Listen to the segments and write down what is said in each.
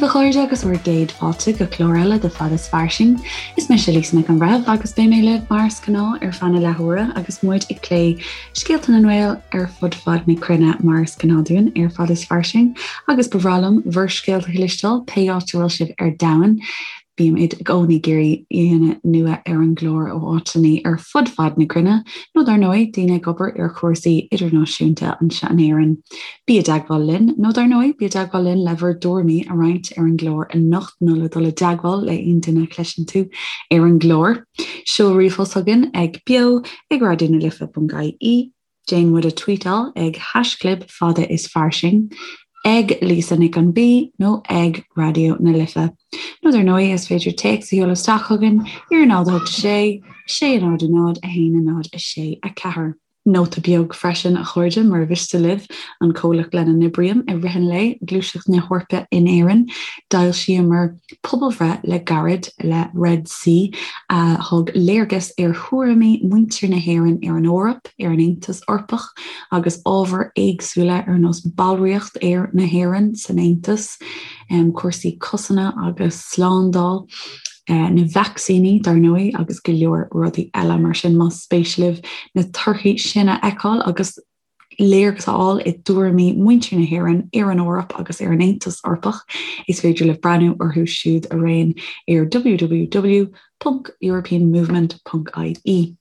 a chairde agus bhur gcéad fáilte go clár eile de Fad is Fairsing. Is mise Lisa Nic an Bhreithimh agus beidh mé libh mar is gnáth ar feadh na leathuaire agus muid ag plé scéalta na nGael ar fud fad na cruinne mar is gnáth dúinn ar Fad is Fairsing agus ba bhreá liom bhur scéalta a chloisteáil pé áit a bhfuil sibh ar domhan. Bímid i gcónaí ag iarraidh aíonna nua ar an gclár ó áiteanna ar fud fad na cruinne, nó dar ndóigh, daoine ag obair ar chúrsaí idirnáisiúnta anseo in Éirinn. Bí i dteagmháil linn, nó dar ndóigh, bí i dteagmháil linn le bhur dtuairimí a roinnt ar an gclár anocht nó le dul i dteagmháil le aon duine a chloiseann tú ar an gclár. Seol ríomhphost chugainn ag beo ag raidionalife.ie. Déan muid a tweetáil ag haischlib fada is fairsing, ag Lisa Nic an B nó ag Raidió na Life. Nó dar ndóigh is féidir téacs a sheoladh isteach chugainn ar 0 8 6 6 0 0 1 0 6 4. Nóta beag freisin, a chairde, mura mhiste libh an comhlacht lena n-oibrím i rith an lae, Gluaiseacht na hEorpa in Éirinn, d'fhoilsíomar pobalbhreith le gairid le Red C a thug léargas ar thuairimí muintir na hÉireann ar an Eoraip, ar an Aontas Eorpach agus ábhair éagsúla ar nós ballraíocht na hÉireann san Aontas, cúrsaí cosanta agus slándáil, na vacsaíní dar ndóigh agus go leor rudaí eile mar sin. Más spéis libh na torthaí sin a fheiceáil agus léargas a fháil i dtuairimí muintir na hÉireann ar an Eoraip agus ar an Aontas Eorpach, is féidir libh breathnú orthu siúd araon ar www.europeanmovement.ie.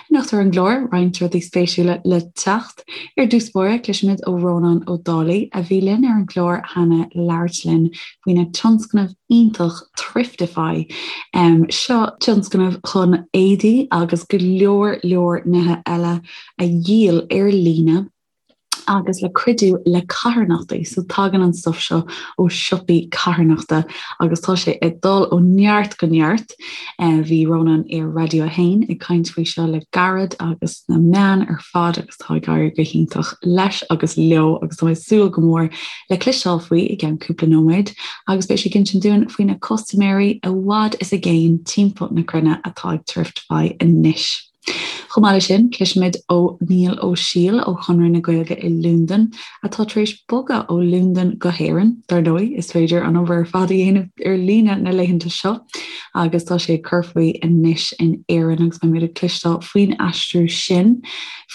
Anocht ar an gclár, roinnt rudaí spéisiúla le teacht. Ar dtús báire, cloisfimid ó Rónán Ó Dálaigh, a bhí linn ar an gclár cheana le labhairt linn faoina tionscnamh iontach Thriftify. Seo tionscnamh chun éadaí agus go leor leor nithe eile a dhíol ar líne agus le cuidiú le carthanachtaí. So tagann an stuif seo ó siopaí carthanachta agus tá sé ag dul ó neart go neart. Bhí Rónán ar Raidió 1 ag caint faoi seo le gairid agus sna meáin ar fad agus tá ag éirí go hiontach leis agus leo agus tá mé ag súil go mór le cloisteáil faoi i gceann cúpla nóiméad agus beidh sé ag insint dúinn faoi na custaiméirí i bhfad is i gcéin timpeall na cruinne atá ag Thriftify anois. Chomh maith leis sin, cloisfimid ó Niall Ó Siail ó Chonradh na Gaeilge i Londain, atá tar éis bogadh ó Londain go hÉirinn. Dar ndóigh, is féidir an obair ar fad a dhéanamh ar líne na laethanta seo agus tá sé ag cur faoi anois in Éirinn agus beimid ag cloisteáil faoin aistriú sin,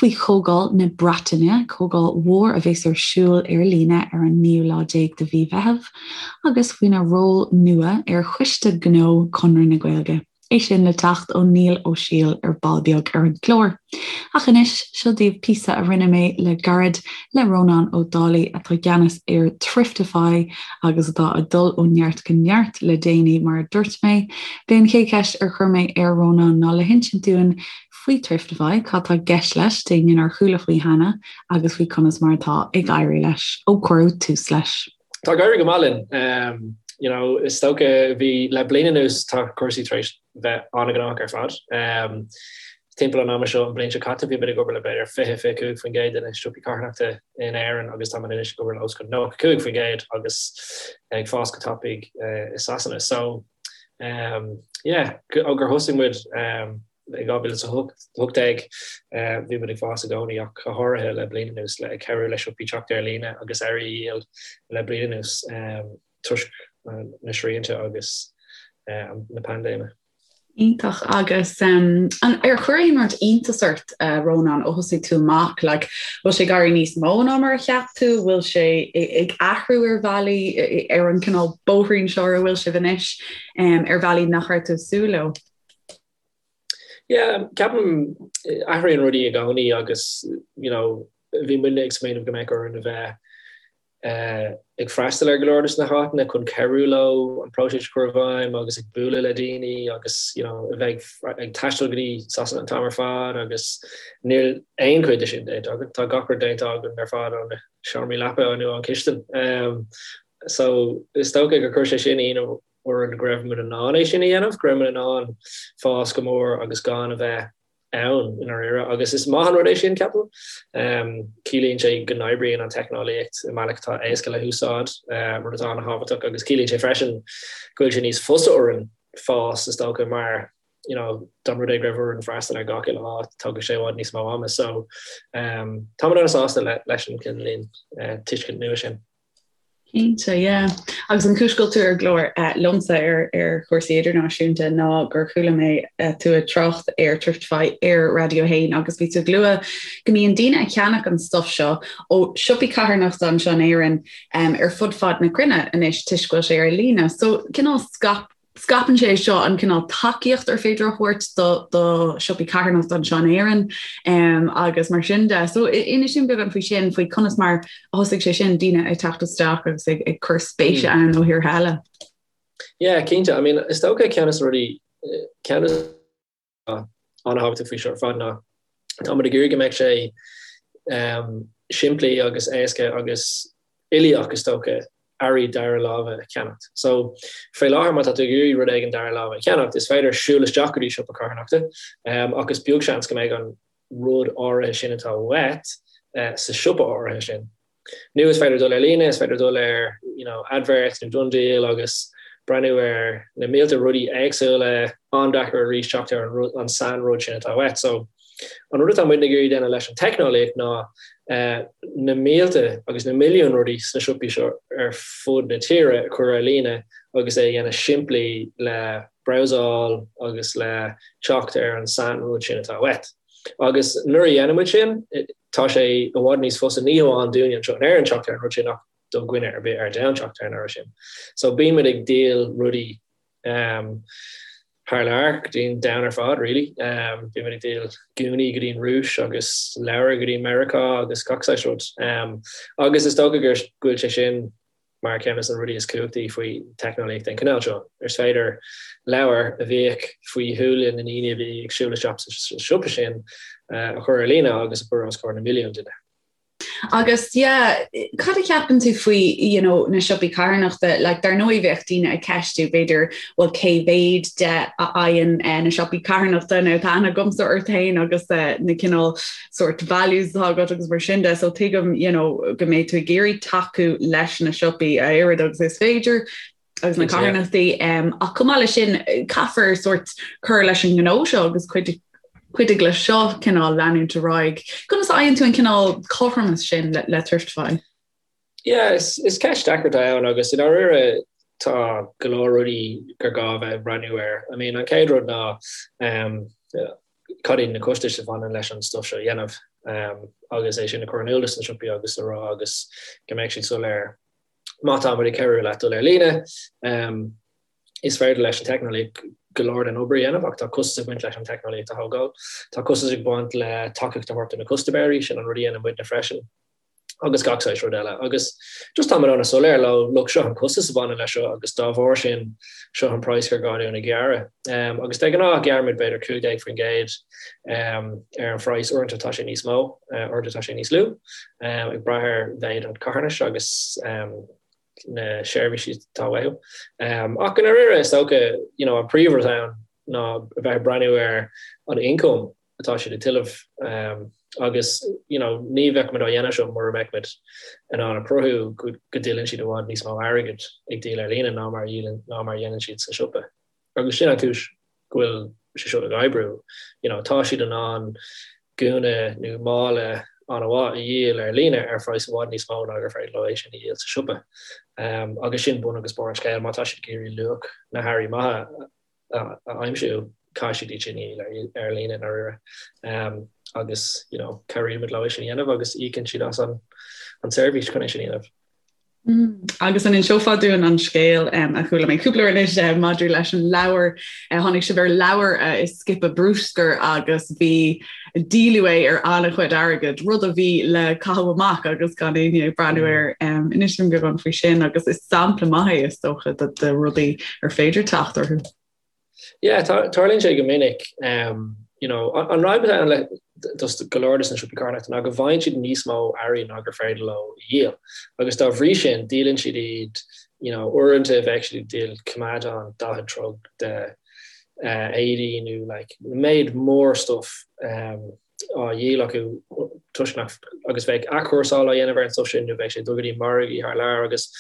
faoi Chomhdháil na Breataine, comhdháil mhór a bheas ar siúl ar líne ar an naoú lá déag de mhí Mheithimh, agus faoina ról nua ar Choiste Gnó Chonradh na Gaeilge. É sin le teacht ó Niall Ó Siail ar ball beag ar an gclár. Ach anois, seo daoibh píosa a rinne mé le gairid le Rónán Ó Dálaigh atá i gceannas ar Thriftify agus atá ag dul ó neart go neart le déanaí mar a dúirt mé. B'é an chéad cheist ar chuir mé ar Rónán ná le hinsint dúinn faoi Thriftify, cad tá i gceist leis, d'éinne nár chuala faoi cheana agus faoi conas mar atá ag éirí leis ó cuireadh tús leis. Tá ag éirí go maith linn. You know, is dócha bhí le bliain anuas tá cúrsaí tar éis bheith an-ghnóthach ar fad. Timpeall an ama seo an bhliain seo caite bhí muid ag obair le b'fhéidir 20, 25% de na siopaí carthanachta in Éirinn agus táimid anois ag obair le os cionn 95% agus ag fás go tapaidh i Sasana. So, yeah, ó gur thosaigh muid I 2018 bhí muid ag fás i gcónaí ach go háirithe le bliain anuas le ag cabhrú le siopaí teacht ar líne agus earraí a dhíol le bliain anuas toisc na srianta agus na paindéime. Iontach agus an ar chuir aon rud iontas ort Rónán ó thosaigh tú amach like bhfuil sé ag éirí níos mó ná mar a cheap tú, bhfuil sé ag athrú ar bhealaí ar an cineál bóithrín seo ar a bhfuil sibh anois ar bhealaí nach raibh tú ag súil leo? Yeah, ceapaim athraíonn rudaí i gcónaí agus you know bhí muidne ag smaoineamh go mbeadh orainn a bheith ag freastal ar go leor de na háiteanna chun cabhrú leo an próiseas a chur i bhfeidhm agus ag bualadh le daoine agus you know a bheith ag taisteal go dtí Sasana an t-am ar fad agus níl aon chuid de sin déanta againn. Tá gach rud déanta againn ar fad ó na seomraí leapa nó ón chistin. So is dócha gur chuir sé sin ionadh orainn go raibh muid in ann é sin a dhéanamh, go raibh muid in ann fás go mór agus gan a bheith ann i ndáiríre. Agus is maith an rud é sin, ceapaim. Ciallaíonn sé go n-oibríonn an teicneolaíocht i mbealach atá éasca le húsáid, rud atá an-thábhachtach, agus ciallaíonn sé freisin go bhfuil sé níos fusa orainn fás, is dócha, mar you know, dá mba rud é go raibh orainn freastal ar gach uile áit, tógfaidh sé i bhfad níos mó ama. So, tá muid an-sásta leis an cineál tuiscint nua sin. Cinnte, yeah. Agus an chúis go bhfuil tú ar an gclár liomsa ar ar chúrsaí idirnáisiúnta ná gur chuala mé tú ag trácht ar Thriftify ar Raidió 1 agus bhí tú ag lua go mbíonn daoine ag ceannach an stuff seo ó siopaí carthanachta anseo in Éirinn ar fud fad na cruinne anois toisc go bhfuil sé ar líne. So cineál scaip Scaipeann sé seo an cineál tacaíocht ar féidir a thabhairt do do siopaí carthanachta anseo in Éirinn agus mar sin de. So inis dúinn beagán faoi sin, faoi conas mar a thosaigh sé sin, daoine ag teacht isteach agus ag ag cur spéise ann ó thíortha eile. Yeah, cinnte. I mean, is dócha ceann de na rudaí, ceann de an-thábhachtach faoi seo ar fad ná tá muid ag iarraidh go mbeadh sé simplí agus éasca agus uilíoch is dócha earraí dara láimhe a cheannacht. So faoi láthair má tá tú ag iarraidh rud éigin dara láimhe a cheannacht is féidir siúl isteach go dtí siopa carthanachta ach is beag seans go mbeidh an rud áirithe sin atá uait sa siopa áirithe sin. Nó is féidir dul ar líne, is féidir dul ar you know Adverts nó DoneDeal agus breathnú ar na mílte rudaí éagsúla, an-deacair arís teacht ar an rud, an sain-rud sin atá uait. So an rud atá muidne ag iarraidh déanamh leis an teicneolaíocht ná na mílte agus na milliúin rudaí sna siopaí seo ar fud na tíre a chur ar líne agus é a dhéanamh simplí le browsáil agus le teacht ar an sain-rud sin atá uait. Agus nuair a dhéanann muid sin, tá sé i bhfad níos fusa, ní hamháin dúinne anseo in Éirinn teacht ar an rud sin ach do dhuine ar bith ar domhan teacht ar an earra sin. So bíonn muid ag díol rudaí thar lear go dtí an domhan ar fad really. Bíonn muid ag díol gúnaí go dtí an Rúis agus leabhair go dtí Meiriceá agus gach saghas rud. Agus is dócha go bhfuil sé sin mar ceann de na rudaí is cumhachtaí faoi teicneolaíocht den chineál seo. Is féidir leabhar a bhíodh faoi shúile na ndaoine a bhí ag siúl isteach sa siopa sin a chur ar líne agus a chur os comhair na milliún duine. Agus yeah, cad a cheapann tú faoi you know, na siopaí carthanachta? Like, dar ndóigh bheadh daoine ag ceistiú b'fhéidir bhuel cé mhéid de a fhaigheann eh, na siopaí carthanachta nó tá aithne agamsa ort féin agus eh, na cineál sort values atá agat agus mar sin de, so tuigim you know, go mbeidh tú ag iarraidh tacú leis na siopaí a oiread agus is féidir agus na carthanachtaí um, ach chomh maith leis sin caithfear sort cur leis an ngnó seo agus cuid cuidiú leis seo cineál leanúint ar aghaidh. Conas a fhaigheann tú an cineál cothromas sin le, le Thriftify? Yeah, is, is ceist deacair atá ann agus i ndáiríre tá go leor rudaí gur gá a bheith ag breathnú air. I mean, an chéad rud ná um, cad iad na costais a bhaineann leis an stuff seo a dhéanamh agus é sin a chur in iúl dos na siopaí agus a rá agus go mbeidh siad soiléir má tá muid ag cabhrú leat dul ar líne. Is féidir leis an teicneolaíocht go leor den obair a dhéanamh ach tá costas ag baint leis an teicneolaíocht a thógáil. Tá costas ag baint le tacaíocht a thabhairt do na custaiméirí, sin an rud a dhéanann muidne freisin. agus gach saghas rud eile. Agus just táimid an-soiléir leo, look, seo an costas a bhaineann leis seo agus dá bharr sin, seo an praghas gur gá dúinn a ghearradh. Agus de ghnáth gearraimid b'fhéidir 15% ar an phraghas, uaireanta tá sé níos mó, uaireanta tá sé níos lú, ag brath ar mhéid an charthanais agus na seirbhísí atá uathu. Ach i ndáiríre is dócha, you know, an príomhrud ann ná a bheith ag breathnú ar an ioncam atá siad ag tuilleamh agus you know ní bheadh muid á dhéanamh seo mura mbeadh muid in ann a chruthú go dtuilleann siad i bhfad níos mó airgid ag díol ar líne ná mar ná mar a dhéanann siad sa siopa. Agus sin an chúis go bhfuil sé seo ag oibriú. You know tá siad in ann gúna nó mála an-mhaith a dhíol ar líne ar phraghas i bhfad níos mó ná gur féidir leo é sin a dhíol sa siopa. Agus sin bun agus barr an scéil, má tá siad ag iarraidh luach na hearraí maithe a aimsiú, caithfidh siad iad sin a dhíol ar líne i ndáiríre. Agus you know cabhraímid leo é sin a dhéanamh agus íocann siad as an tseirbhís chun é sin a dhéanamh. Agus an inseofá dúinn an scéal a chuala mé cúpla uair anois maidir leis an leabhar, tháinig sibh ar leabhar i scipe bruscair agus bhí díoladh é ar an-chuid airgid, rud a bhí le caitheamh amach agus gan éinne ag breathnú air. Inis dúinn beagán faoi sin agus is sampla maith é is dócha de rudaí ar féidir teacht orthu. Yeah, tarlaíonn sé go minic. You know, an fhadhb atá ann le dos go leor dos na siopaí carthanachta ná go bhfaigheann siad níos mó earraí ná gur féidir leo a dhíol. Agus dá bhrí sin, díolann siad iad, you know, uaireanta bheadh siad ag díol coimeádán 40 troigh de éadaí nó like méid mór stuff á dhíol acu toisc nach agus bheadh athchúrsáil á dhéanamh ar an stuff sin nó bheadh sé ag dul go dtí margaí thar lear agus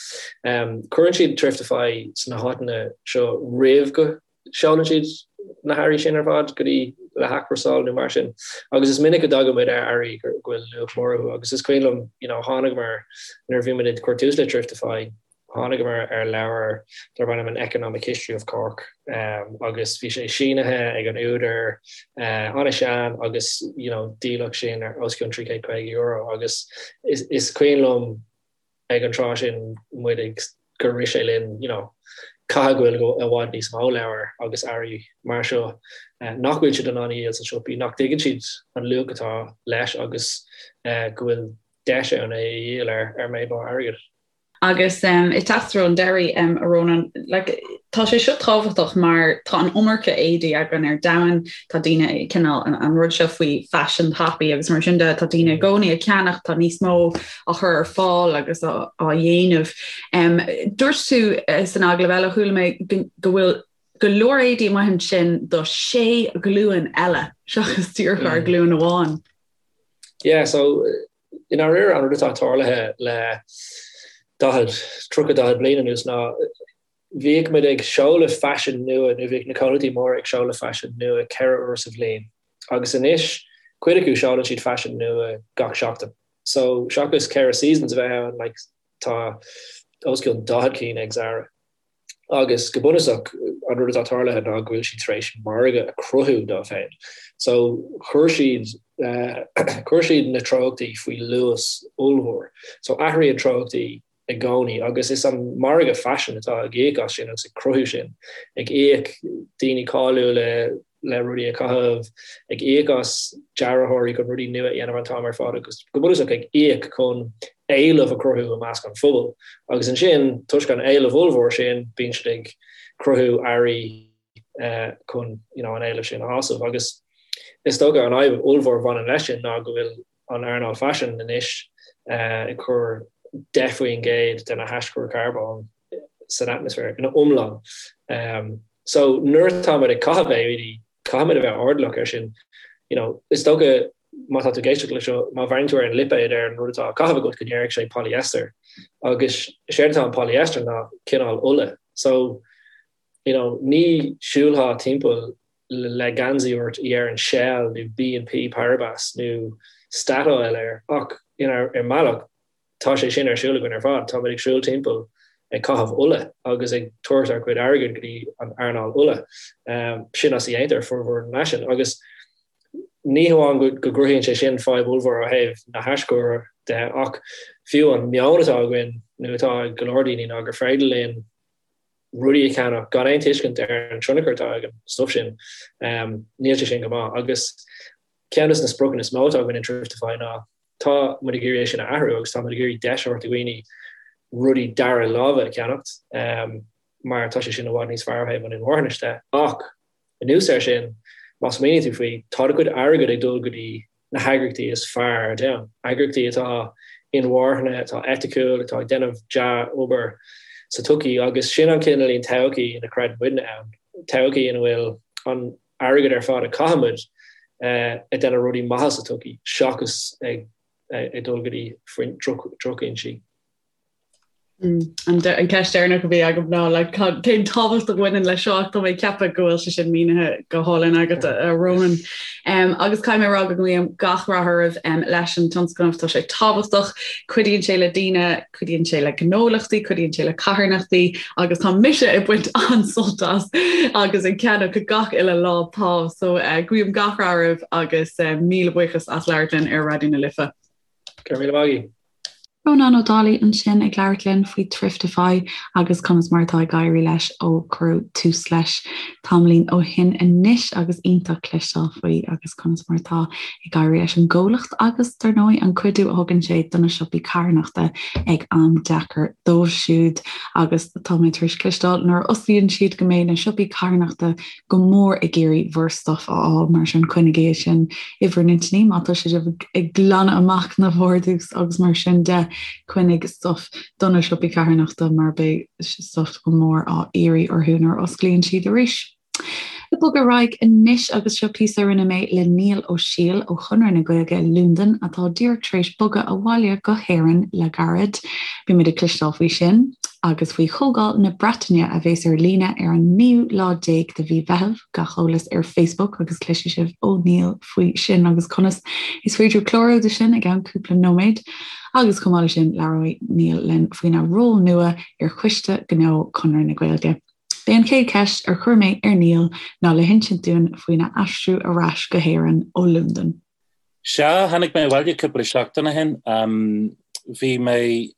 cuireann siad Thriftify sna háiteanna seo roimh go seolann siad na hearraí sin ar fad go dtí le hathchúrsáil nó mar sin agus is minic go dtagann muid ar earraí go bhfuil luach mór orthu agus is cuimhin liom you know tháinigeamar nuair a bhí muid ag cur tús le Thriftify. Tháinigeamar ar leabhar darb ainm An Economic History of Cork agus bhí sé sínithe ag an údar, an-sean agus you know díoladh sin ar os cionn €350 agus is cuimhin liom ag an tráth sin muid ag gur rith sé linn you know caithfidh go bhfuil i bhfad níos mó leabhar agus earraí mar seo nach bhfuil siad in ann a dhíol sna siopaí, nach dtuigeann siad an luach atá leis agus go bhfuil deis ann é a dhíol ar méid mór airgid. Agus ag teacht i dtreo an deiridh, a Rónáin, like, tá sé seo tábhachtach mar tá an iomarca éadaí againn ar domhan, tá daoine ag cineál an rud seo faoi faisean tapaidh agus mar sin de, tá daoine i gcónaí ag ceannach, tá níos mó á chur ar fáil agus á dhéanamh. Dúirt tú san agallamh eile, chuala mé go bhfuil go leor éadaí amuigh ansin do sé ghlúin eile seachas díreach ár nglúin amháin. Yeah, so I ndáiríre, an rud atá tarlaithe le 40, 30, 40 bliain anuas ná bhíodh muid ag seoladh faisean nua nó bhíodh na comhlachtaí móra ag seoladh faisean nua 4 uair sa bhliain agus anois cuid acu seolann siad faisean nua gach seachtain. So seachas 4 seasons a bheith ann like tá os cionn 40 cinn ag Zara. Agus go bunúsach, an rud atá tarlaithe ná go bhfuil siad tar éis margadh a chruthú dóibh féin. So, chuir siad, chuir siad na treochtaí faoi luas ollmhór. So, athraíonn treochtaí i gcónaí agus is an margadh faisin atá ag íoc as sin agus ag cruthú sin, ag íoc daoine cáiliúla le rudaí a chaitheamh, ag íoc as dearthóirí chun rudaí nua a dhéanamh an t-am ar fad agus go bunúsach ag íoc chun éileamh a chruthú i measc an phobail. Agus ansin, toisc an éileamh ollmhór sin, bíonn siad ag cruthú earraí chun you know an éileamh sin a shásamh. Agus is dócha an fhadhb ollmhór a bhaineann leis sin ná go bhfuil an earnáil faisin anois ag cur 10% de na haischuir carbóin san atmaisféar ina iomlán. So nuair atá muid ag caitheamh éadaí, caithfimid a bheith airdeallach air sin. You know, is dócha má tá tú ag éisteacht leis seo, má bhreathnaíonn tú ar an lipéad ar an rud atá á chaitheamh agat go ndéarfaidh sé polyester. Agus is éard atá in polyester ná cineál ola. So, you know, ní siúlfá timpeall le geansaí ort a dheireann Shell nó BNP Paribas nó Statoil air ach, you know, ar mbealach, Tá sé sin ar siúl againn ar fad. Táimid ag siúl timpeall ag caitheamh ola agus ag tabhairt ár gcuid airgid go dtí an earnáil ola. Sin as a dhéantar formhór an fhaisin. Agus ní hamháin go gcruthaíonn sé sin fadhb ollmhór ó thaobh na haischuir de ach fiú an meon atá againn nó atá ag go leor daoine ná gur féidir linn rudaí a cheannach gan aon tuiscint ar an tionchar atá ag an stuif sin. Níl sé sin go maith. Agus ceann de na spriocanna is mó atá againn in Thriftify ná Tá muid ag iarraidh é sin a athrú agus tá muid ag iarraidh deis a thabhairt do dhaoine rudaí dara láimhe a cheannacht mar tá sé sin i bhfad níos fearr ó thaobh an inmharthanais de. Ach anuas air sin, má smaoiníonn tú faoi, tá do chuid airgid ag dul go dtí na heagraíochtaí is fearr ar domhan, eagraíochtaí atá inmharthana, atá eiticiúil, atá ag déanamh dea-obair sa tsochaí agus sin an cineáilín todhchaí ina gcreideann muidne ann, todhchaí ina bhfuil an airgead ar fad a chaithimid ag déanamh rudaí maithe sa tsochaí seachas ag dul go dtí drochfhoinsí. An ceist deireanach a bhí agam ná like, cén tábhacht a bhaineann leis seo ach tá mé ag ceapadh go bhfuil sé sin mínithe go hálainn agat a Rónáin. Um, agus caithfidh mé a rá go nguím gach rath oraibh um, leis an tionscnamh tá sé tábhachtach, cuidíonn sé le daoine Cuidíonn sé le gnólachtaí, cuidíonn sé le carthanachtaí agus tá mise ag baint an-sult as agus ag ceannach gach uile lá pá. So uh, guím gach rath oraibh agus uh, míle buíochas as labhairt linn ar Raidió na Life. Go raibh míle maith agat. Rónán Ó Dálaigh ansin ag labhairt linn faoi Thriftify agus conas mar atá ag éirí leis ó cuireadh tús leis tamaillín ó shin anois agus iontach cloisteáil faoi agus conas mar atá ag éirí leis an gcomhlacht agus, dar ndóigh, an cuidiú a thugann sé do na siopaí carthanachta ag am deacair dóibh siúd. Agus tá mé tar éis cloisteáil nuair a osclaíonn siad go mbeidh na siopaí carthanachta go mór ag iarraidh bhur stuif a fháil, mar sin coinnigí é sin i bhur n-intinní má tá sibh ag glanadh amach na vardrús agus mar sin de, coinnigh stuif do na siopaí carthanachta mar beidh stuif go mór á iarraidh orthu nuair a osclaíonn siad arís. Ag bogadh ar aghaidh anois agus seo píosa a rinne mé le Niall Ó Siail ó Chonradh na Gaeilge Londain atá díreach tar éis bogadh abhaile go hÉirinn le gairid. Beimid ag cloisteáil faoi sin. agus faoi Chomhdháil na Breataine a bheas ar líne ar an naoú lá déag de mhí Mheithimh, gach eolas ar Facebook agus cloisfidh sibh ó Niall faoi sin agus conas is féidir clárú do sin i gceann cúpla nóiméad. Agus chomh maith leis sin labhróidh Niall linn faoina ról nua ar Choiste Gnó Chonradh na Gaeilge. B'é an chéad cheist ar chuir mé ar Niall ná le hinsint dúinn faoina aistriú ar ais go hÉirinn ó Londain. Sea, tháinig mé abhaile cúpla seachtain ó shin. Bhí mé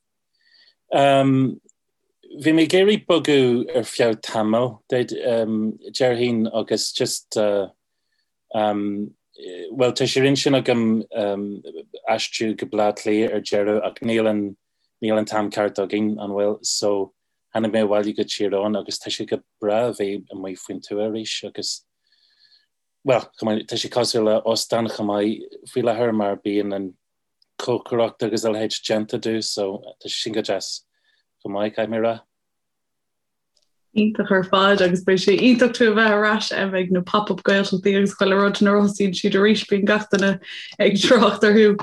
Bhí mé ag iarraidh bogadh ar feadh tamaill, déarfainn, agus just, bhuel, tá sé ar intinn agam aistriú go Baile Átha Cliath ar deireadh ach níl an, níl an t-am ceart againn, an bhfuil? So, tháinig mé abhaile go Tír Eoghain agus tá sé go breá a bheith amuigh faoin tuath arís agus, bhuel, tá sé cosúil le óstán chomh maith faoi láthair mar bíonn an cócaireacht agus a leithéid déanta domh so tá sé sin go deas chomh maith, caithfidh mé a rá. Iontach ar fad agus beidh sé iontach tú a bheith ar ais ag na pop-up Gaeltachtaí agus chuile rud nuair a thosaíonn siad arís bíonn gach duine ag trácht orthu.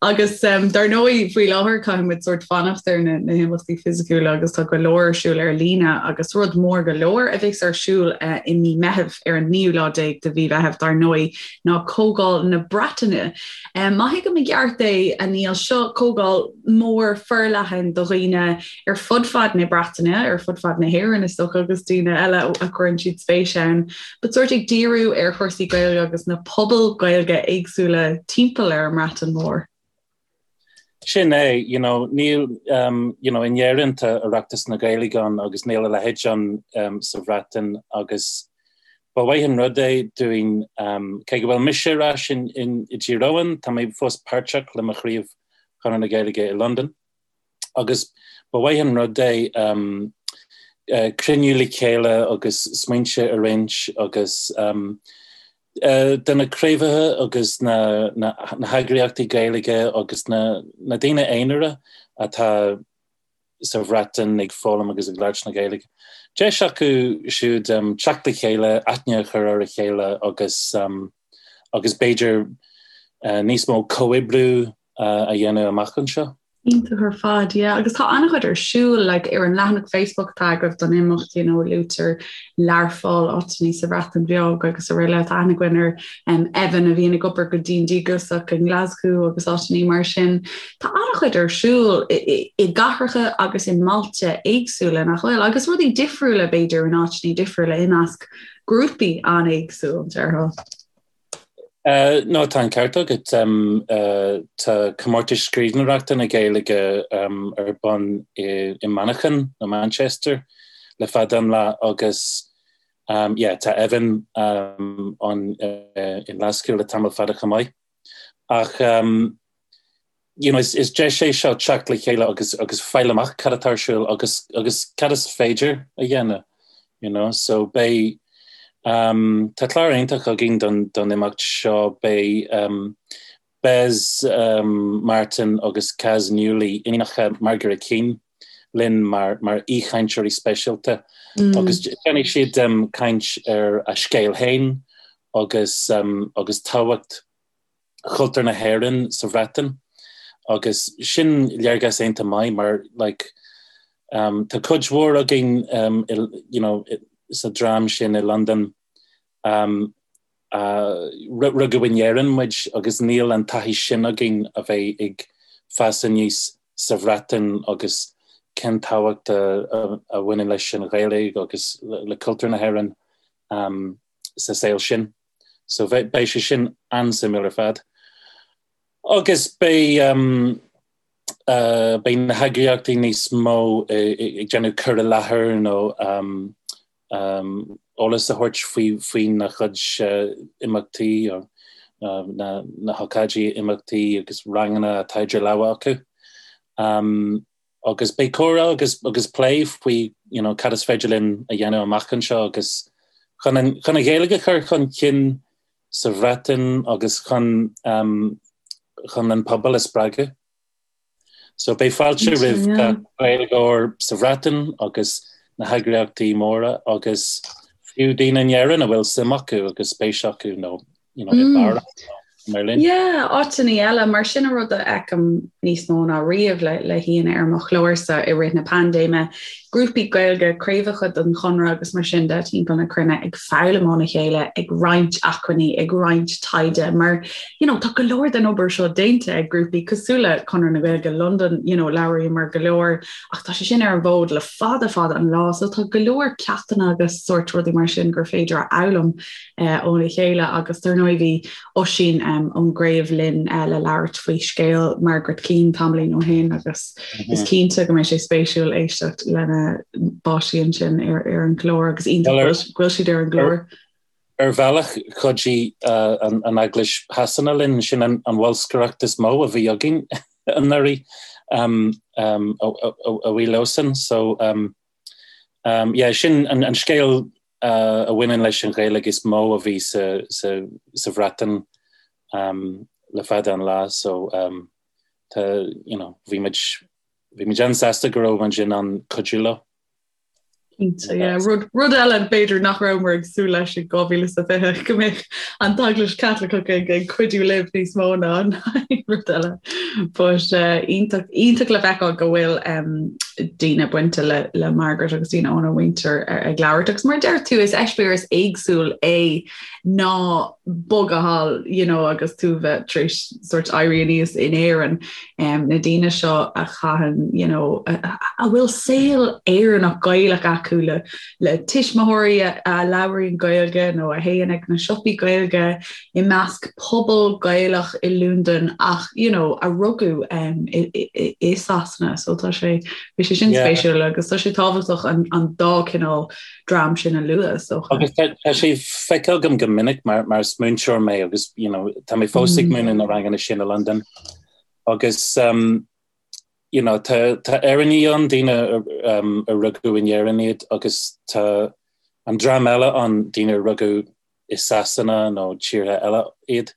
Agus dar ndóigh faoi láthair caithfidh muid sórt fanacht ar na na himeachtaí fisiciúla agus tá go leor ar siúl ar líne agus rud mór go leor a bheas ar siúl eh, i mí Meitheamh ar an naoú lá déag de mhí Mheitheamh dar ndóigh ná Comhdháil na Breataine. Má thuigim i gceart é, a Niall, seo comhdháil mór forleathan do dhaoine ar fud fad na Breataine, ar fud fad na hÉireann is dócha agus daoine eile a chuireann siad spéis ann, but sórt ag díriú ar chúrsaí Gaeilge agus na pobail Gaeilge éagsúla timpeall ar an mBreatain Mhór. Sin é, you know, níl, you know, in Éirinn tá Oireachtas na Gaeilge ann agus níl a leithéid ann sa Bhreatain agus ba mhaith an rud é dúinn, cé go bhfuil mise ar ais in, i dTír Eoghain, tá mé fós páirteach le mo chraobh Chonradh na Gaeilge i Londain agus ba mhaith an rud é cruinniú le chéile agus smaointe a roinnt agus do na craobhacha agus na heagraíochtaí Gaeilge agus na daoine aonair atá sa Bhreatain ag foghlaim agus ag labhairt na Gaeilge. Deis acu siúd teacht le chéile, aithne a chur ar a chéile agus agus b'fhéidir níos mó comhoibriú a dhéanamh amach anseo. Iontach ar fad, yeah. Agus tá an-chuid ar siúl, like, ar an leathanach Facebook atá agaibh don imeacht, you know, luaitear Learpholl, áiteanna sa Bhreatain Bheag agus araile. Tá aithne againn ar um, Evan a bhíonn ag obair go dian díograiseach i nGlaschú agus áiteanna mar sin. Tá an-chuid ar siúl i, i, i gcathracha agus i mbailte éagsúla nach bhfuil, agus rudaí difriúla b'fhéidir in áiteanna difriúla i measc grúpaí an-éagsúil, déarfá. No, tá an ceart agat. Tá comórtas scríbhneoireachta na Gaeilge ar bun i Manchain, nó Manchester, le fada an lá agus yeah, tá Evan ann i nGlaschú le tamall fada chomh maith. Ach you know, is, is deis é seo teacht le chéile agus, agus fáil amach cad atá ar siúl agus, agus cad is féidir a dhéanamh, you know, so beidh, um, tá clár iontach againn don, don imeacht seo, beidh um, Bez um, Martin agus Kaz Newley, iníonacha Margaret Keane, linn mar, mar aoichainteoirí speisialta mm. agus déanfaidh siad um, caint ar a scéal féin agus, um, agus tábhacht chultúr na hÉireann sa Bhreatain agus sin léargas iontach maith mar like um, tá cuid mhór againn um, i, you know, sa dream sin i Londain um, uh, rugadh in Éirinn muid agus níl an taithí sin againn a bheith ag fás aníos sa Bhreatain agus cén tábhacht a, a, a bhaineann leis an Ghaeilge agus le, le cultúr na hÉireann um, sa saol sin. So beidh sé sin an-suimiúil ar fad. Agus beidh um, uh, beidh na heagraíochtaí níos mó ag déanamh cur i láthair nó um, um, eolas a thabhairt faoi faoina gcuid uh, imeachtaí uh, na, na hócáidí imeachtaí agus ranganna atá idir lámha acu. Um, Agus beidh comhrá agus agus plé faoi you know cad is féidir linn a dhéanamh amach anseo agus chun an chun an Ghaeilge a chur chun cinn sa Bhreatain agus chun um, chun an pobal a spreagadh. So beidh fáilte roimh gach Gaeilgeoir sa Bhreatain agus na heagraíochtaí móra agus fiú daoine in Éirinn a bhfuil suim acu agus spéis acu nó you know, i mm. Mar linn. Yeah, áiteanna eile, mar sin an rud a fheicim níos mó ná riamh le le haíonna ar mo chlársa i rith na paindéime, grúpaí Gaeilge, craobhacha den Chonradh agus mar sin de timpeall na cruinne ag foghlaim óna chéile, ag roinnt acmhainní, ag roinnt taighde mar you know tá go leor den obair seo déanta ag grúpaí cosúil le Conradh na Gaeilge Londain, you know labhraíomar go leor ach tá sé sin ar an bhfód le fada fada an lá so tá go leor ceachtanna agus sórt rudaí mar sin gur féidir a fhoghlaim óna chéile agus dar ndóigh bhí Oisín ón gcraobh linn le labhairt faoi scéal Margaret Keane tamaillín ó shin agus is cinnte go mbeidh sé spéisiúil éisteacht lena bpáistí ansin ar ar an gclár agus iontach go bhfuil siad ar an gclár. Ar bhealach chuidigh an Eaglais Shasana linn, sin an bholscaireacht is mó a bhí againn anuraidh a bhuí leosan. So yeah, sin an scéal a bhaineann leis an Ghaeilge is mó a bhí sa Bhreatain le fada an lá so tá you know bhí muid bhí muid an-sásta go raibh muid in ann cuidiú leo. Cinnte, yeah. Rud, rud eile b'fhéidir nach rabhamar ag súil leis i 2020 go mbeadh an tEaglais Chaitliceach ag, ag cuidiú libh níos mó ná an rud eile. But uh, iontach, iontach le feiceáil go bhfuil um, daoine bainte le, le Margaret agus daoine óna mhuintir ag labhairt. Agus mar deir tú is eispéireas éagsúil é ná bogadh thall you know, agus tú bheith tar éis sort éirí aníos in Éirinn. Um, na daoine seo a chaitheann you know, a, a bhfuil saol Éireannach Gaelach acu le, le tuismitheoirí a, a labhraíonn Gaeilge nó a théann ag na siopaí Gaeilge i measc pobal Gaelach i Londain ach you know, a rugadh um, i, i, i Sasana so tá sé bhí sé sin spéisiúil agus tá sé tábhachtach an, an dá cineál dream sin a lua so. Agus tá sé feicthe agam go minic mar, mar is múinteoir mé agus you know, tá mé fós ag mm. múineadh na ranganna sin i Londain agus um, you know, tá, tá Éireannaigh ann, daoine um, a rugadh in Éirinn iad agus tá an dream eile ann, daoine a rugadh i Sasana nó tíortha eile iad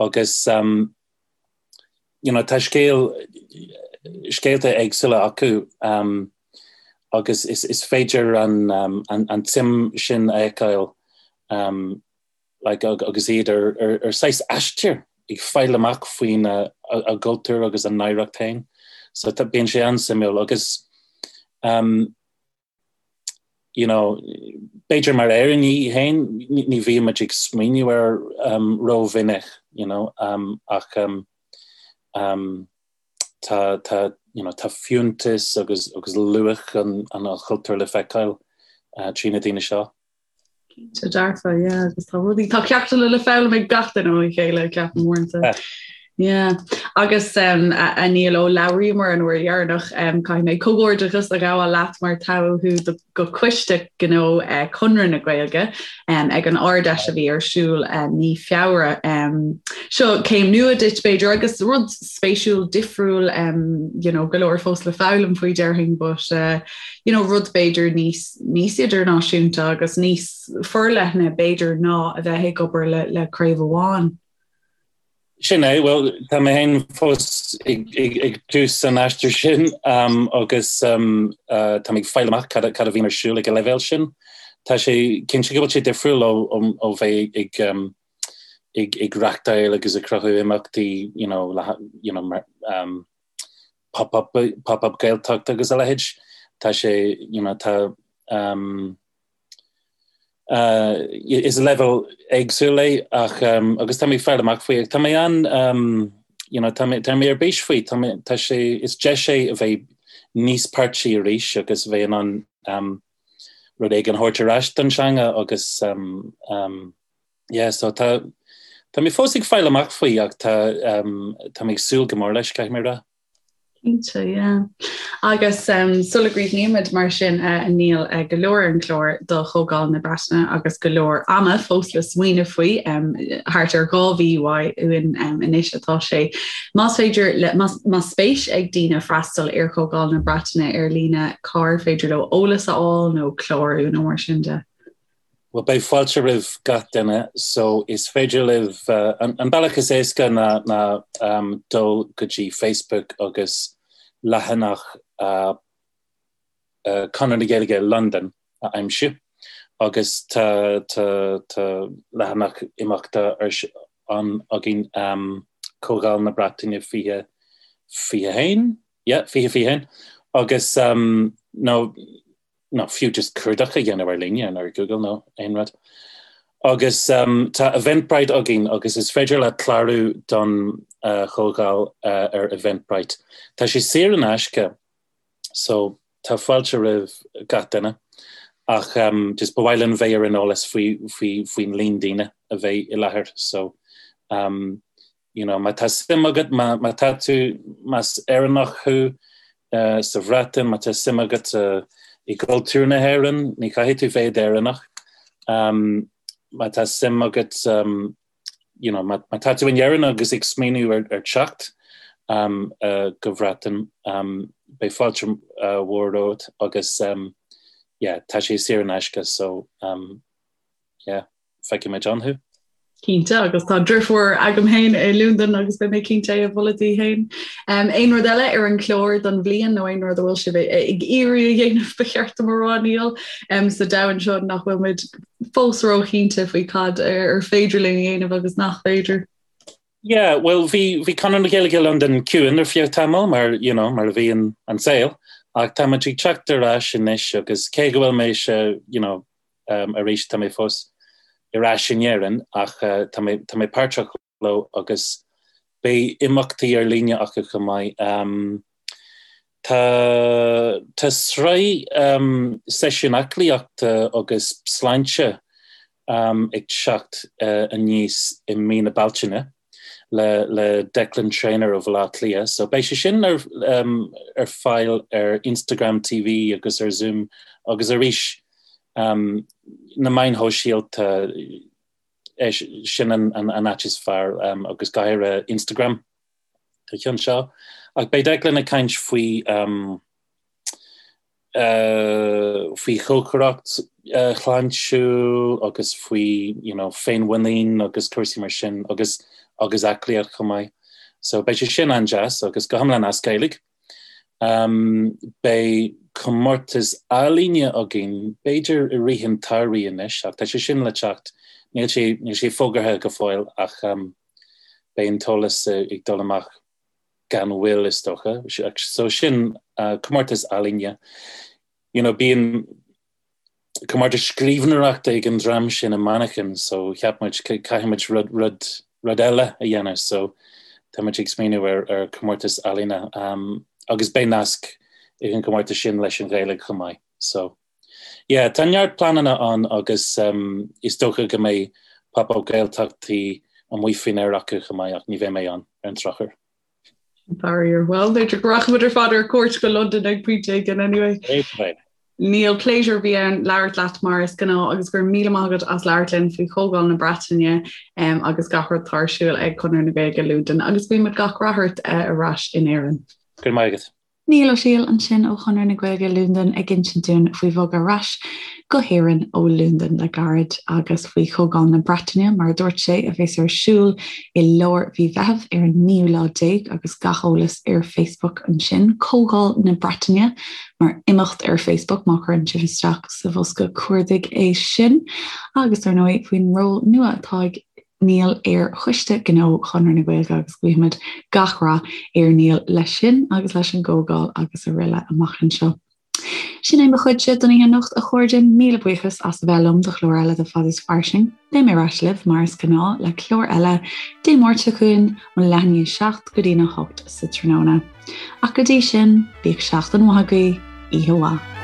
agus um, you know, tá scéal, scéalta éagsúla acu um, agus is, is féidir an, um, an, an tsuim sin a fheiceáil um, like, agus iad ar, ar, ar saghas aistear ag fáil amach faoina a, a gcultúr agus a n-oidhreacht féin. So tá, bíonn sé an-suimiúil agus um, you know, b'fhéidir mar Éireannaigh féin ní bhíonn muid ag smaoineamh air um, rómhinic, you know, um, ach um, um, tá, tá, you know, tá fiúntas agus, agus luach an, an chultúir le feiceáil uh, trí na daoine seo. Cinnte dearfa, yeah, agus tá rudaí, tá ceachtanna le foghlaim ag gach duine óna chéile, ceapaim uaireanta. Yeah. Agus um, a, a Niall ó labhraíomar an uair dheireanach um, caithfidh mé comhghairdeachas a ghabháil leat mar toghadh thú do, go Coiste Gnó uh, Conradh na Gaeilge um, ag an Ard-Fheis a bhí ar siúl uh, mí Feabhra. Um, seo céim nua duit b'fhéidir agus rud spéisiúil difriúil um, you know, go leor fós le foghlaim faoi déarfainn, but uh, you know, rud b'fhéidir níos níos idirnáisiúnta agus níos forleithne b'fhéidir ná a bheith ag obair le, le craobh amháin. Sin é, bhuel, tá mé féin fós ag, ag, ag tús an aistir sin um, agus um, uh, tá mé ag fáil amach cad, cad a bhíonn ar siúl ag an leibhéal sin. Tá sé cinnte go bhfuil sé difriúil ó, ó, ó bheith ag, um, ag, ag reachtáil agus ag cruthú imeachtaí you know, le, you know, mar, um, pop-up, pop-up Gaeltacht agus a leithéid. Tá sé, you know, tá, um, uh, is leibhéal éagsúil é ach um, agus tá mé ag fáil amach faoi. Tá mé an, um, you know, tá mé, tá mé ar bís faoi, tá mé, tá sé, is deis é a bheith níos páirtí arís agus bheith in ann um, rud éigin a thabhairt ar ais don teanga agus um, um, yeah, so tá, tá mé fós ag fáil amach faoi ach tá, um, tá mé ag súil go mór leis, caithfidh mé a rá. Cinnte, yeah. Agus um, sula gcríochnaímid mar sin uh, a Niall uh, go leor ar an chlár do Chomhdháil na Breataine agus go leor ama fós le smaoineamh faoi um, thart ar 2 mhí uainn um, anois atá sé. Más féidir le, más, más spéis ag daoine freastal ar Chomhdháil na Breataine ar líne cár féidir leo eolas a fháil nó clárú nó mar sin de. Bhuel, beidh fáilte roimh gach duine, so is féidir libh, an bealach is éasca ná ná dul go dtí Facebook agus leathanach Conradh na Gaeilge Londain a aimsiú agus tá tá tá leathanach imeachta ar. ann againn, Comhdháil na Breataine 2021, yeah, 2021, agus nó nó fiú just cuardach a dhéanamh ar líne nó ar Google nó aon rud. Agus tá Eventbrite againn agus is féidir leat clárú don chomhdháil ar Eventbrite. Tá sé saor in aisce so tá fáilte roimh gach duine ach just ba mhaith linn bheith ar an eolas faoi faoi faoin líon daoine a bheidh i láthair so you know, má tá suim agat, má, má tá tú, más Éireannach thú uh, sa Bhreatain, má tá suim agat uh, i gcultúr na hÉireann, ní chaithfidh tú bheith Éireannach. Um, má tá suim agat, um, you know, má, má tá tú in Éirinn agus ag smaoineamh ar, ar teacht um, uh, go Bhreatain, um, beidh fáilte uh, mhór romhat agus um, yeah, tá sé saor in aisce, so um, yeah. Feicfidh muid ann thú. Cinnte, agus tá deirfiúr agam féin i Londain agus beidh mé cinnte é a mholadh di féin. Aon rud eile ar an chlár don bhliain nó aon rud a bhfuil sibh ag iarraidh a dhéanamh ba cheart dom a rá Niall sa domhan seo nach bhfuil muid fós róchinnte faoi cad ar féidir linn a dhéanamh agus nach féidir. Yeah, well bhí bhí Conradh na Gaeilge Londain ciúin ar feadh tamall mar you know mar a bhíonn an saol ach tá muid ag teacht ar ais anois agus cé go bhfuil mise you know arís tá mé fós ar ais in Éirinn ach tá mé tá mé páirteach leo agus beidh imeachtaí ar líne acu chomh maith. Tá tá sraith seisiún aclaíochta agus sláinte ag teacht aníos i mí na Bealtaine le le Declan Traynor ó Bhaile Átha Cliath. So beidh sé sin ar ar fáil ar Instagram TV agus ar Zoom agus arís na meáin shóisialta sin an an áit is fearr agus go háirithe Instagram. Don cheann seo. Ach beidh Declan ag caint faoi faoi chócaireacht shláintiúil agus faoi you know féinmhuinín agus cúrsaí mar sin agus agus aclaíocht chomh maith. So beidh sé sin an-deas agus go hiomlán as Gaeilge. Um, beidh comórtas ealaíne againn b'fhéidir i rith an tsamhraidh anois ach tá sé sin le teacht níl sé níl sé fógartha go fóill ach um, beidh an t-eolas ag dul amach gan mhoill is dócha. So sin comórtas ealaíne. You know, bíonn comórtas scríbhneoireachta ag an dream sin i Manchain, so cheap muid caithfidh muid rud, rud, rud eile a dhéanamh, so tá muid ag smaoineamh ar, ar comórtas ealaíne um, agus beidh nasc ag an gcomórtas sin leis an Ghaeilge chomh maith. So Yeah, tá neart pleananna ann agus is dócha go mbeidh Pop Up Gaeltachtaí amuigh faoin aer acu chomh maith ach ní bheidh mé ann ar an drochuair. Faraor. Bhuel, b'fhéidir go rachaimid ar fad ar cuairt go Londain ag pointe éigin anyway. Niall, pléisiúr a bhí ann labhairt leat mar is gnáth agus go raibh míle maith agat as labhairt linn faoi Chomhdháil na Breataine agus gach rud atá ar siúl ag Conradh na Gaeilge Londain agus guímid gach rath ort ar ais in Éirinn. Go raibh maith agat. Niall Ó Siadhail ansin ó Chonradh na Gaeilge Londain ag insint dúinn faoi bhogadh ar ais go hÉirinn ó Londain le gairid agus faoi Chomhdháil na Breataine, mar a dúirt sé, a bheas ar siúl i lár mhí Mheithimh ar an naoú lá déag agus gach eolas ar Facebook ansin. Comhdháil na Breataine mar imeacht ar Facebook má chuireann sibh isteach sa bhosca cuardaigh é sin. Agus ar ndóigh faoin ról nua atá ag Niall ar Choiste Gnó Chonradh na Gaeilge agus guímid gach rath ar Niall leis sin agus leis an gcomhdháil agus araile amach anseo. Sin é mo chuidse don oíche anocht a chairde, míle buíochas as a bheith liom do chlár eile de Fad is Fairsing. Beidh mé ar ais libh mar is gnáth le clár eile Dé Máirt seo chugainn ón leath i ndiaidh a 7 go dtí'n 8 sa tráthnóna. Ach go dtí sin, bíodh seachtain mhaith agaibh, oíche mhaith.